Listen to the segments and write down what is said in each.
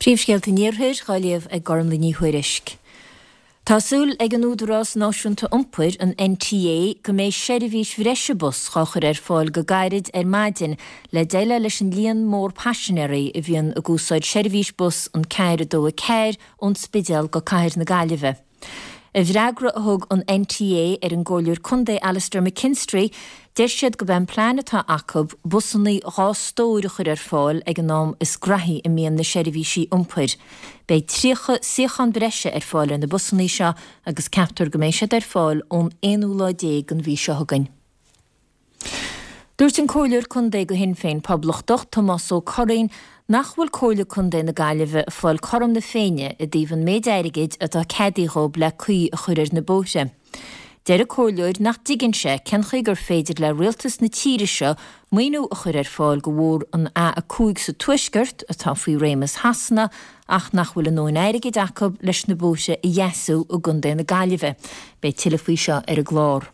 Príomhscéalta an Iarthair dhá léamh ag Gormlaith Ní Thuairisg. Tá súil ag an Údarás Náisiúnta Iompair, an NTA, go mbeidh seirbhís bhreise bus dhá chur ar fáil go gairid ar maidin le déileáil leis an líon mór paisinéirí a bhíonn ag úsáid seirbhís bus an 4 2 4 ón Spidéal go Cathair na Gaillimhe. I bhfreagra a thug an NTA ar an gComhairleoir Contae Alastair McKinstry, deir siad gurb é an plean atá acu busannaí 2 stór a chur ar fáil ag an am is graithí a mbíonn na seirbhísí iompair. Beidh 30 suíochán breise ar fáil ar na busannaí seo agus ceaptar go mbeidh siad ar fáil ón aonú lá déag den mhí seo chugainn. Dúirt an Comhairleoir Contae do Shinn Féin Poblachtach, Tomás Ó Curraoin, nach bhfuil Comhairle Contae na Gaillimhe ag fáil cothrom na Féinne i dtaobh an méid airgid atá ceadaithe dhóib le caoi a chur ar na bóithre. Deir an Comhairleoir nach dtuigeann sé cén chaoi gur féidir le rialtas na tíre seo maoiniú a chur ar fáil do bhóthar an A5 sa Tuaisceart, atá faoi réimeas Shasana, ach nach bhfuil a ndóthain airgid acu leis na bóithre a dheasú i gContae na Gaillimhe. Beidh tuilleadh faoi seo ar an gclár.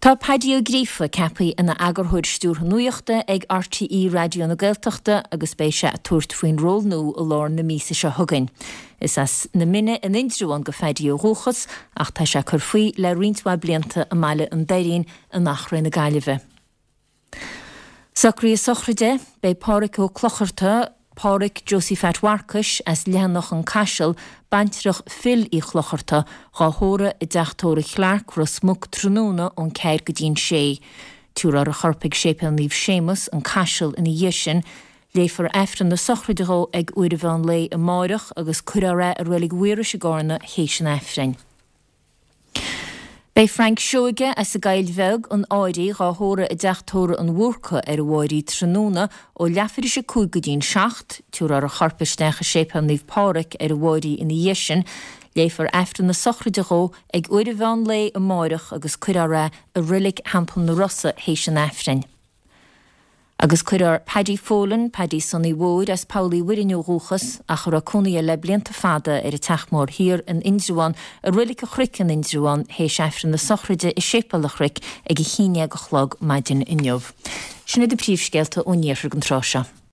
Tá Paddy Ó Gríofa ceaptha ina Eagarthóir Stiúrtha Nuachta ag RTÉ Raidió na Gaeltachta agus beidh sé ag tabhairt faoin ról nua i lár na míosa seo chugainn. Is as na Mine in Indreabhán do Phaddy ó dhúchas ach tá sé ag cur faoi le roinnt mhaith blianta i mBaile an Doirín in Achréidh na Gaillimhe. Socruithe sochraide, Beidh Pádhraic Ó Clochartaigh, Pádhraic Josie Phat Mharcais, as Leathanach an Caiseal, baintreach Phil Uí Chlochartaigh, dhá thórramh i dTeach Tórraimh Chlarke, Ros Muc tráthnóna ón ceathair go dtí'n sé. Tabharfar a chorp ag Séipéal Naomh Séamus, an Caiseal ina dhiaidh sin. Léifear Aifreann na sochraide dhó ag uair an mheán lae amáireach agus cuirfear é i Reilig Mhaorais i gCarna théis an Aifrinn. Beidh Frank Seoige as an gCoill Bheag, an Áirí, dhá thórramh i dTeach Tórraimh an Bhúrcaigh ar an Mháirí tráthnóna ó leathuair théis 5 go dtí'n 7. Tabharfar a chorp isteach i Séipéal Naomh Pádraig ar an Mháirí ina dhiaidh sin. Léifear Aifreann na sochraide dhó ag uair an mheán lae amáireach agus cuirfear é i Reilig Theampall na Rosa théis an Aifrinn. Agus cuirfear Paddy Folan, Paddy Sonny Mhóir, as Poll Uí Mhuirinn ó dhúchas, ach a raibh cónaí air le blianta fada ar an Teach Mór Thiar in Indreabhán, i Roilic an Chnoic in Indreabhán, théis Aifreann na sochraide i Séipéal an Chnoic ag a haon dhéag a chlog maidin inniu. Sin iad na príomhscéalta ón iarthar don tráth seo.